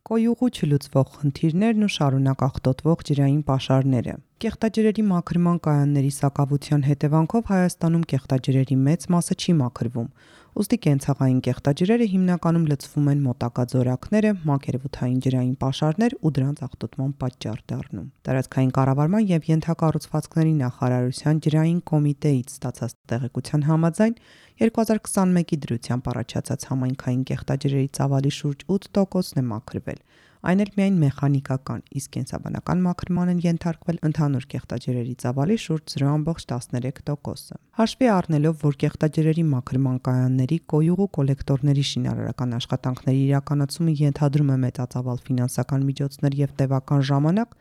Կոյուղու չլուծվող խնդիրներն ու շարունակ աղտոտվող ջրային պաշարները։ Կեղտաջրերի մաքրման կայանների սակավության հետևանքով Հայաստանում կեղտաջրերի մեծ մասը չի մաքրվում, ուստի կենցաղային կեղտաջրերը հիմնականում լցվում են մոտակա ձորակները, մակերևութային ջրային պաշարներ ու դրանց աղտոտման պատճառ դառնում։ Տարածքային կառավարման և ենթակառուցվածքների նախարարության ջրային կոմիտեից ստացած տեղեկության համաձայն 2021-ի դրությամբ առաջացած համայնքային կեղտաջրերի ծավալի շուրջ 8%-ն է մաքրվել, այն էլ միայն մեխանիկական, իսկ կենսաբանական մաքրման են ենթարկվել ընդհանուր կեղտաջրերի ծավալի շուրջ 0.13%-ը։ Հաշվի առնելով, որ կեղտաջրերի մաքրման կայանների, կոյուղու կոլեկտորների շինարարական աշխատանքների իրականացումը ենթադրում է մեծածավալ ֆինանսական միջոցներ և տևական ժամանակ,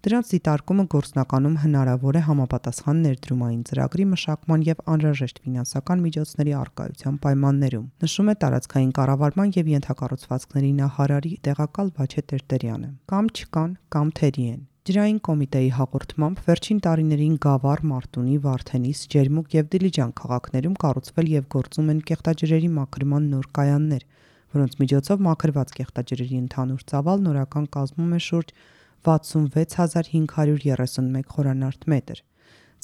դրանց դիտարկումը գործնականում հնարավոր է համապատասխան ներդրումային ծրագրի մշակման և անհրաժեշտ ֆինանսական միջոցների առկայության պայմաններում, նշում է տարածքային կառավարման և ենթակառուցվածքների նախարարի տեղակալ Վաչե Տերտերյանը։ Կամ չկան, կամ թերի են։ Ջրային կոմիտեի հաղորդմամբ վերջին տարիներին Գավառ, Մարտունի, Վարդենիս, Ջերմուկ և Դիլիջան քաղաքներում կառուցվել և գործում են կեղտաջրերի մաքրման նոր կայաններ, որոնց միջոցով մաքրված կեղտաջրերի ընդհանուր ծավալն օրական կազմում է շուրջ 66531 խորանարդ մետր։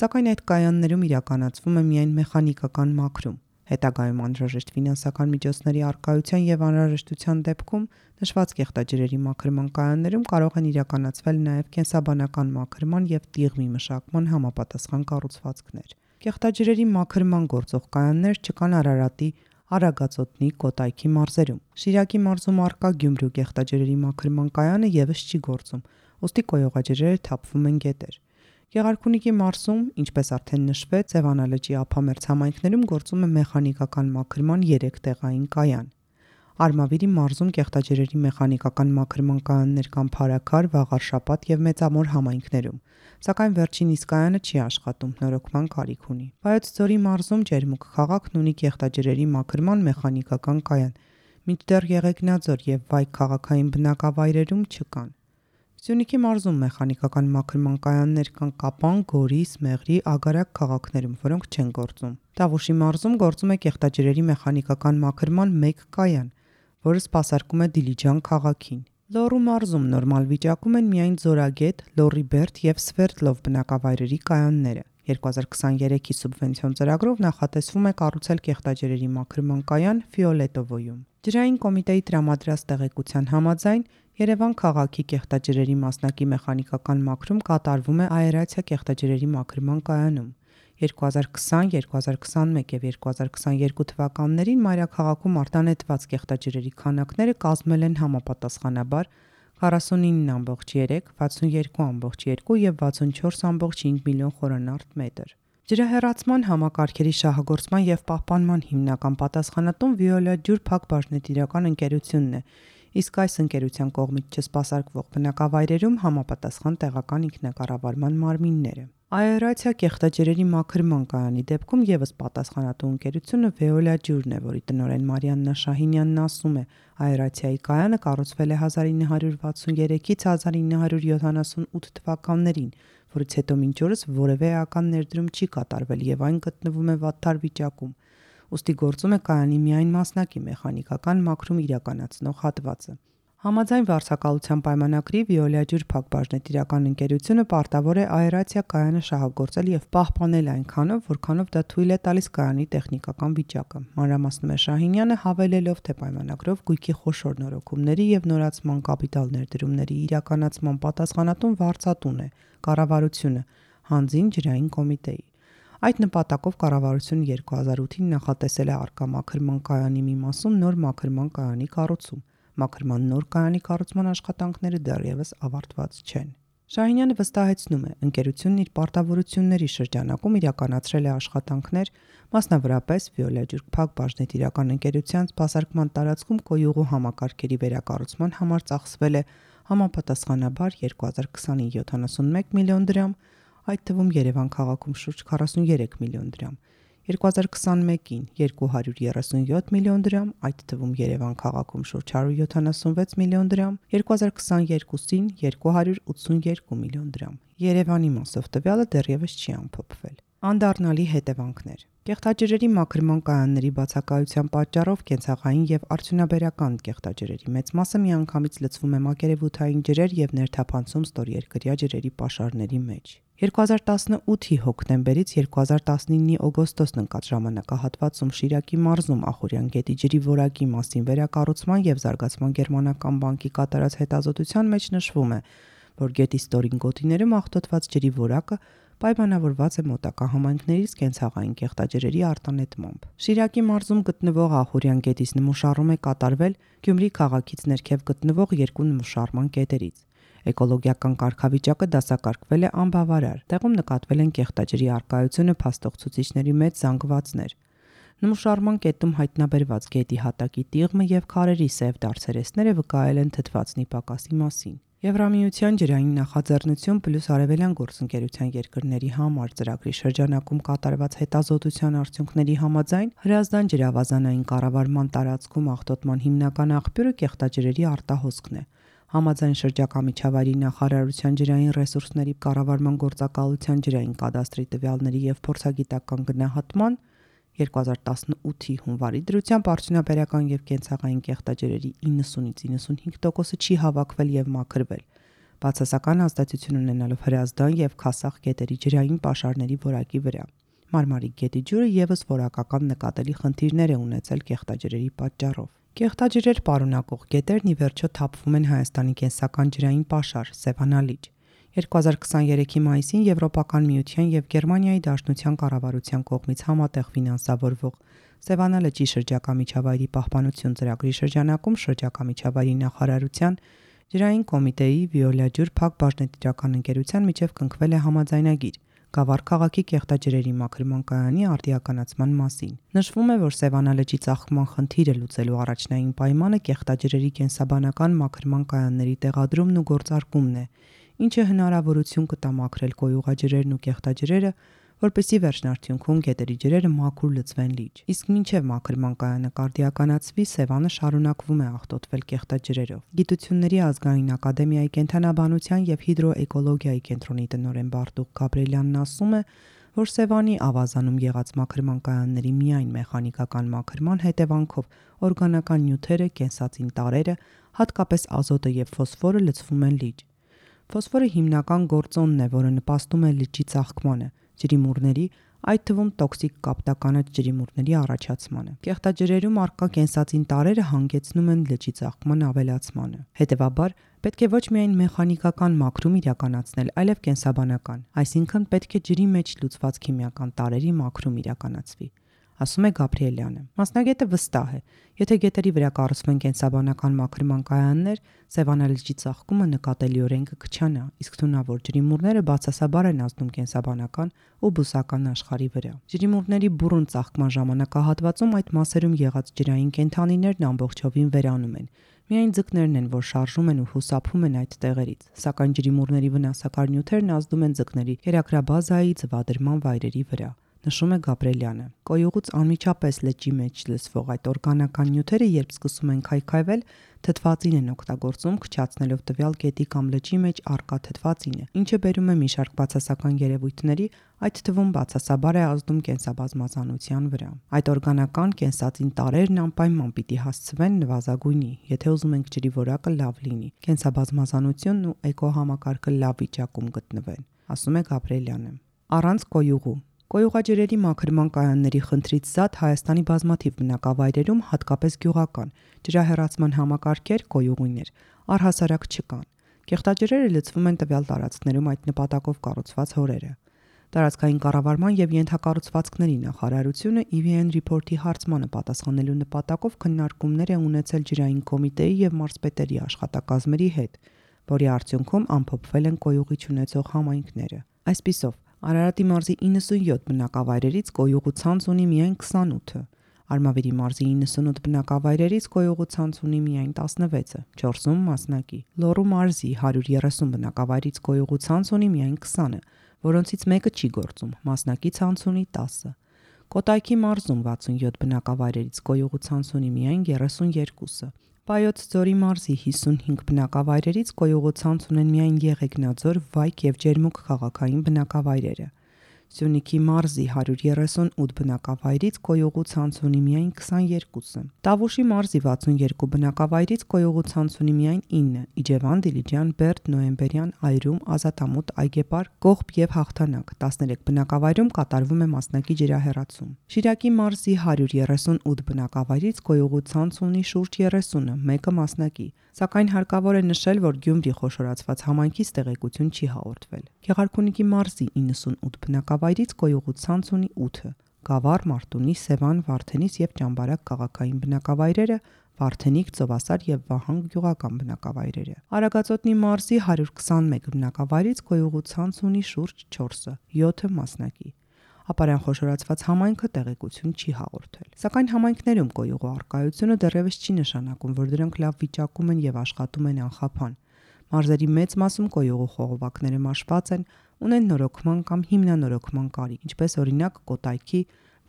Սակայն այդ կայաններում իրականացվում է միայն մեխանիկական մաքրում։ Հետագայում անհրաժեշտ ֆինանսական միջոցների առկայության և անհրաժեշտության դեպքում նշված կեղտաջրերի մաքրման կայաններում կարող են իրականացվել նաև կենսաբանական մաքրման և տիղմի մշակման համապատասխան կառուցվածքներ։ Կեղտաջրերի մաքրման գործող կայաններ չկան Արարատի, Արագածոտնի, Կոտայքի մարզերում։ Շիրակի մարզում առկա Գյումրու կեղտաջրերի մաքրման կայանը ևս չի գործում, ուստի կոյուղաջրերը թափվում են գետեր։ Գեղարքունիքի մարզում, ինչպես արդեն նշվեց, Սևանալճի ափամերձ համայնքներում գործում է մեխանիկական մաքրման 3 տեղային կայան։ Արմավիրի մարզում կեղտաջրերի մեխանիկական մաքրման կայաններ կան Փարաքար, Վաղարշապատ և Մեծամոր համայնքներում, սակայն վերջին իսկ կայանը չի աշխատում, նորոգման կարիք ունի։ Վայոց ձորի մարզում Ջերմուկ քաղաքն ունի կեղտաջրերի մաքրման մեխանիկական կայան, մինչդեռ Եղեգնաձոր և Վայք քաղաքային բնակավայրերում չկան։ Սյունիքի մարզում մեխանիկական մաքրման կայաններ կան Կապան, Գորիս, Մեղրի, Ագարակ քաղաքներում, որոնք չեն գործում։ Տավուշի մարզում գործում է կեղտաջրերի մեխանիկական մաքրման 1 կայան, որը սպասարկում է Դիլիջան քաղաքին։ Լոռու մարզում նորմալ վիճակում են միայն Ձորագետ, Լոռիբերդ և Սվերդլով բնակավայրերի կայանները։ 2023-ի սուբվենցիոն ծրագրով նախատեսվում է կառուցել կեղտաջրերի մաքրման կայան Ֆիոլետովոյում։ Ջրային կոմիտեի տրամադրած տեղեկության համաձայն Երևան քաղաքի կեղտաջրերի մասնակի մեխանիկական մաքրում կատարվում է Աերացիա կեղտաջրերի մաքրման կայանում։ 2020, 2021 և 2022 թվականներին մայրաքաղաքում արտանետված կեղտաջրերի քանակները կազմել են համապատասխանաբար 49.3, 62.2 և 64.5 միլիոն խորանարդ մետր։ Ջրահեռացման համակարգերի շահագործման և պահպանման հիմնական պատասխանատուն Վիոլա ջուր Փակ բաժնետիրական ընկերությունն է, իսկ այս ընկերության կողմից չսպասարկվող բնակավայրերում համապատասխան տեղական ինքնակառավարման մարմինները։ Աերացիա կեղտաջրերի մաքրման կայանի դեպքում ևս պատասխանատու ընկերությունը Վեոլա ջուրն է, որի տնօրեն Մարիաննա Շահինյանն ասում է. Աերացիայի կայանը կառուցվել է 1963-ից 1978 թվականներին, որից հետո մինչ օրս որևէ էական ներդրում չի կատարվել և այն գտնվում է վատթար վիճակում, ուստի գործում է կայանի միայն մասնակի մեխանիկական մաքրում իրականացնող հատվածը։ Համաձայն վարձակալության պայմանագրի Վիոլա ջուր Փակ բաժնետիրական ընկերությունը պարտավոր է աերացիա կայանը շահագործել և պահպանել այնքանով, որքանով դա թույլ է տալիս կայանի տեխնիկական վիճակը։ Մանրամասնում է Շահինյանը, հավելելով, թե պայմանագրով գույքի խոշոր նորոգումների և նորացման կապիտալ ներդրումների իրականացման պատասխանատուն վարձատուն է կառավարությունը, հանձին ջրային կոմիտեի։ Այդ նպատակով կառավարությունը 2008-ին նախատեսել է առկա մաքրման կայանի մի մասում նոր մաքրման կայանի կառուցում։ Մաքրման նոր կայանի կառուցման աշխատանքները դեռևս ավարտված չեն։ Շահինյանը վստահեցնում է, ընկերությունն իր պարտավորությունների շրջանակում իրականացրել է աշխատանքներ, մասնավորապես Վիոլա ջուր Փակ բաժնետիրական ընկերության սպասարկման տարածքում կոյուղու համակարգերի վերակառուցման համար ծախսվել է համապատասխանաբար 2020-ին 71 միլիոն դրամ, այդ թվում Երևան քաղաքում շուրջ 43 միլիոն դրամ, 2021-ին 237 միլիոն դրամ, այդ թվում Երևան քաղաքում շուրջ 176 միլիոն դրամ, 2022-ին 282 միլիոն դրամ։ Երևանի մասով տվյալը դեռևս չի ամփոփվել։ Անդառնալի հետևանքներ։ Կեղտաջրերի մաքրման կայանների բացակայության պատճառով կենցաղային եւ արդյունաբերական կեղտաջրերի մեծ մասը միանգամից լցվում է մակերևութային ջրեր եւ ներթափանցում ստորերկրյա ջրերի պաշարների մեջ։ 2018-ի հոկտեմբերից 2019-ի օգոստոսն ընկած ժամանակահատվածում Շիրակի մարզում Ախուրյան գետի ջրի որակի մասին վերակառուցման եւ զարգացման գերմանական բանկի կատարած հետազոտության մեջ նշվում է, որ գետի ստորին գոտիներում աղտոտված ջրի որակը պայմանավորված է մոտակա համայնքներից կենցաղային կեղտաջրերի արտանետմամբ։ Շիրակի մարզում գտնվող Ախուրյան գետից նմուշառում է կատարվել Գյումրի քաղաքից ներքև գտնվող երկու նմուշառման կետերից։ Էկոլոգիական կարգավիճակը դասակարգվել է անբավարար։ Տեղում նկատվել են կեղտաջրի առկայությունը փաստող ցուցիչների մեծ զանգվածներ։ Նմուշառման կետում հայտնաբերված գետի հատակի տիղմը եւ քարերի սև դարձերեսները վկայել են թթվածնի պակասի մասին։ Եվրամիության ջրային նախաձեռնություն պլյուս Արևելյան գործընկերության երկրների համար ծրագրի շրջանակում կատարված հետազոտության արդյունքների համաձայն Հրազդան ջրավազանային կառավարման տարածքում աղտոտման հիմնական աղբյուրը կեղտաջրերի արտահոսքն է։ Համաձայն շրջակա միջավայրի նախարարության ջրային ռեսուրսների կառավարման գործակալության ջրային կադաստրի տվյալների եւ փորձագիտական գնահատման 2018-ի հունվարի դրությամբ արդյունաբերական եւ կենցաղային կեղտաջրերի 90-ից 95%-ը չի հավաքվել եւ մաքրվել, բացասական ազդեցություն ունենալով Հրազդան եւ Քասախ գետերի ջրային պաշարների որակի վրա։ Մարմարիկ գետի ջուրը եւս որակական նկատելի խնդիրներ է ունեցել կեղտաջրերի պատճառով։ Կեղտաջրեր պարունակող գետերն ի վերջո թափվում են Հայաստանի կենսական ջրային պաշար Սևանալիճ։ 2023-ի մայիսին Եվրոպական միության եւ Գերմանիայի Դաշնության կառավարության կողմից համատեղ ֆինանսավորվող Սևանա լճի շրջակա միջավայրի պահպանություն ծրագրի շրջանակում շրջակա միջավայրի նախարարության ջրային կոմիտեի Վիոլա ջուր Փակ բաժնետիրական ընկերության միջև կնքվել է համաձայնագիր Գավառ քաղաքի կեղտաջրերի մաքրման կայանի արդիականացման մասին։ Նշվում է, որ Սևանա լճի ծաղկման խնդիրը լուծելու առաջնային պայմանը կեղտաջրերի կենսաբանական մաքրման կայանների տեղադրումն ու գործարկումն է, ինչը հնարավորություն կտա մաքրել կոյուղաջրերն ու կեղտաջրերը, որպեսզի վերջնարդյունքում գետերի ջրերը մաքուր լցվեն լիճ։ Իսկ մինչև մաքրման կայանը կարդիականացվի, Սևանը շարունակվում է աղտոտվել կեղտաջրերով։ Գիտությունների ազգային ակադեմիայի կենթանաբանության եւ հիդրոէկոլոգիայի կենտրոնի տնօրեն Բարտուղ Գաբրելյանն ասում է, որ Սևանի ավազանում եղած մաքրման կայանների միայն մեխանիկական մաքրման հետևանքով օրգանական նյութերը, կենսածին տարրերը, հատկապես ազոտը եւ ֆոսֆորը լցվում են լիճ։ Ֆոսֆորը հիմնական գործոնն է, որը նպաստում է լճի ծաղկմանը, ջրիմուռների, այդ թվում տոքսիկ կապտականաչ ջրիմուռների առաջացմանը։ Կեղտաջրերում առկա կենսածին տարրերը հանգեցնում են լճի ծաղկման ավելացմանը։ Հետևաբար, պետք է ոչ միայն մեխանիկական մաքրում իրականացնել, այլև կենսաբանական, այսինքն պետք է ջրի մեջ լուծված քիմիական տարրերի մաքրում իրականացվի, ասում է Գաբրիելյանը։ Մասնագետը վստահ է, եթե գետերի վրա կառուցվեն կենսաբանական մաքրման կայաններ, Սևանա լճի ծաղկումը նկատելիորեն կքչանա, իսկ թունավոր ջրիմուռները բացասաբար են ազդում կենսաբանական ու բուսական աշխարհի վրա։ Ջրիմուռների բուռն ծաղկման ժամանակահատվածում այդ մասերում եղած ջրային կենդանիներն ամբողջովին վերանում են։ Միայն ձկներն են, որ շարժում են ու հուսափում են այդ տեղերից, սակայն ջրիմուռների վնասակար նյութերն ազդում են ձկների կերակրաբազայի ձվադրման վայրերի վրա, նշում է Գաբրելյանը։ Կոյուղուց անմիջապես լճի մեջ լցվող այդ օրգանական նյութերը, երբ սկսում են քայքայվել, թթվածին են օգտագործում, քչացնելով տվյալ գետի կամ լճի մեջ առկա թթվածինը, ինչը բերում է մի շարք բացասական երևույթների, այդ թվում բացասաբար է ազդում կենսաբազմազանության վրա։ Այդ օրգանական կենսածին տարրերն անպայման պիտի հասցվեն նվազագույնի, եթե ուզում ենք ջրի որակը լավ լինի, կենսաբազմազանությունն ու էկոհամակարգը լավ վիճակում գտնվեն, ասում է Գաբրելյանը։ Առանց կոյուղու Կոյուղաջրերի մաքրման կայանների խնդրից զատ Հայաստանի բազմաթիվ բնակավայրերում, հատկապես գյուղական, ջրահեռացման համակարգեր, կոյուղիներ առհասարակ չկան։ Կեղտաջրերը լցվում են տվյալ տարածքներում այդ նպատակով կառուցված հորերը։ Տարածքային կառավարման եւ ենթակառուցվածքների նախարարությունը EVN Report-ի հարցմանը պատասխանելու նպատակով քննարկումներ է ունեցել ջրային կոմիտեի եւ մարզպետերի աշխատակազմերի հետ, որի արդյունքում ամփոփվել են կոյուղի ունեցող համայնքները։ Այսպիսով Արարատի մարզի 97 բնակավայրերից կոյուղու ցանց ունի միայն 28-ը, Արմավիրի մարզի 98 բնակավայրերից կոյուղու ցանց ունի միայն 16-ը, 4-ում մասնակի, Լոռու մարզի 130 բնակավայրից կոյուղու ցանց ունի միայն 20-ը, որոնցից մեկը չի գործում, մասնակի ցանց ունի 10-ը, Կոտայքի մարզում 67 բնակավայրերից կոյուղու ցանց ունի միայն 32-ը, Պայոց ձորի մարզի 55 բնակավայրերից կոյուղու ցանց ունեն միայն Եղեգնաձոր, Վայք եւ Ջերմուկ քաղաքային բնակավայրերը։ Սյունիքի մարզի 138 բնակավայրից գոյողու ցանց ունի միայն 22-ը։ Տավուշի մարզի 62 բնակավայրից գոյողու ցանց ունի միայն 9-ը։ Իջևան, Դիլիջան, Բերդ, Նոյեմբերյան, Այրում, Ազատամուտ, Այգեպար, Կողբ եւ Հաղթանակ 13 բնակավայրում կատարվում է մասնակի ջրահեռացում։ Շիրակի մարզի 138 բնակավայրից գոյողու ցանց ունի շուրջ 30-ը, մեկը մասնակի։ Սակայն հարկավոր է նշել, որ Գյումրի խոշորացված համայնքից տեղեկություն չի հաղորդվել։ Գեղարքունիքի մարզի 98 բնակավայրից գոյողու ցանց ունի 8-ը։ Գավառ, Մարտունի, Սևան, Վարդենիս եւ Ճամբարակ քաղաքային բնակավայրերը, Վարդենիկ, Ծովասար եւ Վահան գյուղական բնակավայրերը։ Արագածոտնի մարզի 121 բնակավայրից գոյողու ցանց ունի շուրջ 4-ը, 7-ը մասնակի։ Ապարյան խոշորացված համայնքը տեղեկություն չի հաղորդել։ Սակայն համայնքներում գոյողու արկայությունը դեռևս չի նշանակում, որ դրանք լավ վիճակում են եւ աշխատում են անխափան։ Մարզերի մեծ մասում գոյողու խողովակները մաշված են, ունեն նորոգման կամ հիմնանորոգման կարիք, ինչպես օրինակ Կոտայքի,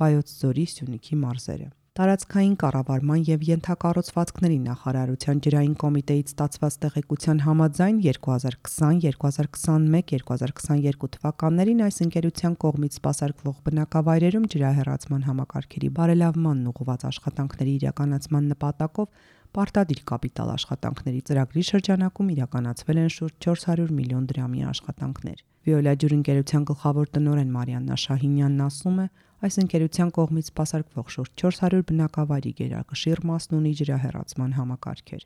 Վայոց ձորի, Սյունիքի մարզերը։ Տարածքային կառավարման եւ ենթակառուցվածքների նախարարության ջրային կոմիտեից ստացված տեղեկության համաձայն 2020, 2021, 2022 թվականներին այս ընկերության կողմից սպասարկվող բնակավայրերում ջրահեռացման համակարգերի բարելավմանն ուղղված աշխատանքների իրականացման նպատակով պարտադիր կապիտալ աշխատանքների ծրագրի շրջանակում իրականացվել են շուրջ 400 միլիոն դրամի աշխատանքներ։ Վիոլա ջուր ընկերության գլխավոր տնօրեն Մարիաննա Շահինյանն ասում է, այս ընկերության կողմից սպասարկվող շուրջ 400 բնակավայրի գերակշիռ մասն ունի ջրահեռացման համակարգեր։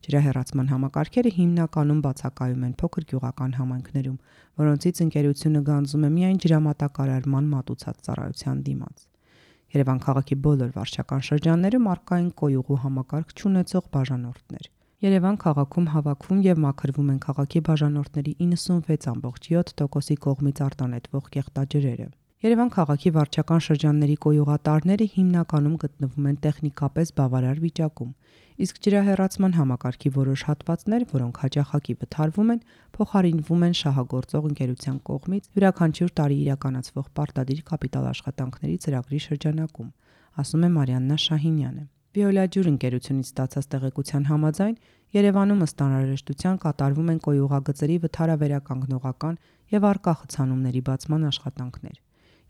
Ջրահեռացման համակարգերը հիմնականում բացակայում են փոքր գյուղական համայնքներում, որոնցից ընկերությունը գանձում է միայն ջրամատակարարման մատուցած ծառայության դիմաց։ Երևան քաղաքի բոլոր վարչական շրջաններում առկա են կոյուղու համակարգ չունեցող բաժանորդներ։ Երևան քաղաքում հավաքվում եւ մաքրվում են քաղաքի բաժանորդների 96.7%-ի կողմից արտանետվող կեղտաջրերը։ Երևան քաղաքի վարչական շրջանների կոյուղատարները հիմնականում գտնվում են տեխնիկապես բավարար վիճակում, իսկ ջրահեռացման համակարգի որոշ հատվածներ, որոնք հաճախակի վթարվում են, փոխարինվում են շահագործող ընկերության կողմից յուրաքանչյուր տարի իրականացվող պարտադիր կապիտալ աշխատանքների ծրագրի շրջանակում, ասում է Մարիաննա Շահինյանը։ Վիոլա ջուր ընկերությունից ստացած տեղեկության համաձայն Երևանում ըստ անհրաժեշտության կատարվում են կոյուղագծերի վթարավերականգնողական եւ առկա խցանումների բացման աշխատանքներ։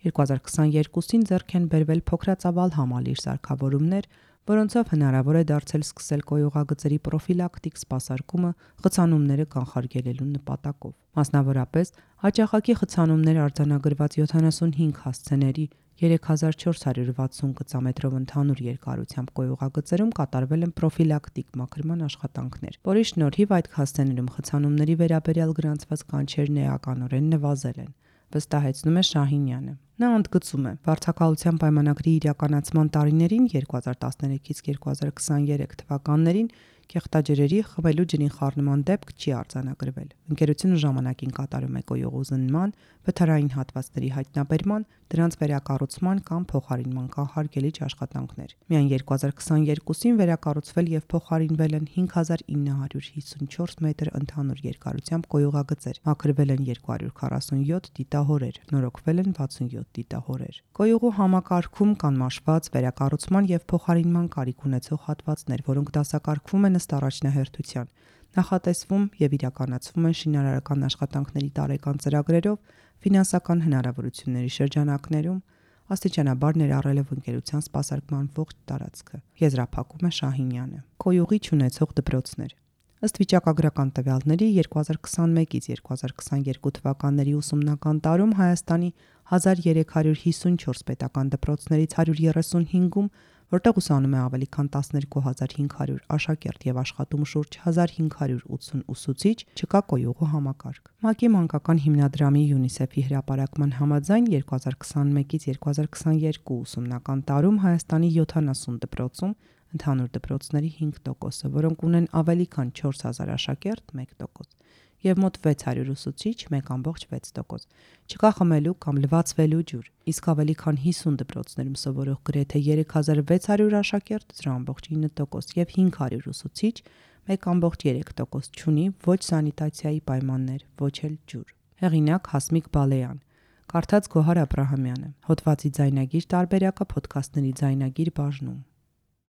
2022-ին ձեռք են բերվել փոքրածավալ համալիր սարքավորումներ, որոնցով հնարավոր է դարձել սկսել կոյուղագծերի պրոֆիլակտիկ սպասարկումը խցանումները կանխարգելելու նպատակով։ Մասնավորապես, հաճախակի խցանումներ արձանագրված 75 հասցեների 3460 գծամետրով ընդհանուր երկարությամբ կոյուղագծերում կատարվել են պրոֆիլակտիկ մաքրման աշխատանքներ, որի շնորհիվ այդ հասցեներում խցանումների վերաբերյալ գրանցված կանչերն էականորեն նվազել են, վստահեցնում է Շահինյանը։ Նա ընդգծում է, վարձակալության պայմանագրի իրականացման տարիներին 2013-ից 2023 թվականներին կեղտաջրերի խմելու ջրին խառնման դեպք չի արձանագրվել։ Ընկերությունը ժամանակին կատարում է կոյուղու զննման, վթարային հատվածների հայտնաբերման, դրանց վերակառուցման կամ փոխարինման կանխարգելիչ աշխատանքներ։ Միայն 2022-ին վերակառուցվել եւ փոխարինվել են 5954 մետր ընդհանուր երկարությամբ կոյուղագծեր, մաքրվել են 247 դիտահորեր, նորոգվել են 67 դիտահորեր։ Կոյուղու համակարգում կան մաշված, վերակառուցման եւ փոխարինման կարիք ունեցող հատվածներ, որոնք դասակարգվում են ըստ առաջնահերթության, նախատեսվում եւ իրականացվում են շինարարական աշխատանքների տարեկան ծրագրերով, ֆինանսական հնարավորությունների շրջանակներում, աստիճանաբար ներառելով ընկերության սպասարկման ողջ տարածքը, եզրափակում է Շահինյանը։ Կոյուղի չունեցող դպրոցներ։ Ըստ վիճակագրական տվյալների 2021-ից 2022 թվականների ուսումնական տարում Հայաստանի 1354 պետական դպրոցներից 135-ում, որտեղ ուսանում է ավելի քան 12500 աշակերտ եւ աշխատում շուրջ 1580 ուսուցիչ, չկա կոյուղու համակարգ։ ՄԱԿ-ի մանկական հիմնադրամի ՅՈՒՆԻՍԵՖ-ի հրապարակման համաձայն 2021-ից 2022 ուսումնական տարում Հայաստանի 70 դպրոցում ընդհանուր դպրոցների 5%-ը, որոնք ունեն ավելի քան 4000 աշակերտ 1%, եւ մոտ 600 ուսուցիչ 1.6%, չկա խմելու կամ լվացվելու ջուր, իսկ ավելի քան 50 դպրոցներում սովորող գրեթե 3600 աշակերտ 0.9% եւ 500 ուսուցիչ 1.3% չունի ոչ սանիտացիայի պայմաններ, ոչ էլ ջուր։ Հեղինակ Հասմիկ Բալեյան, կարդաց Գոհար Աբրահամյանը, հոդվածի ձայնագիր տարբերակը փոդքասթների ձայնագիր բաժնում։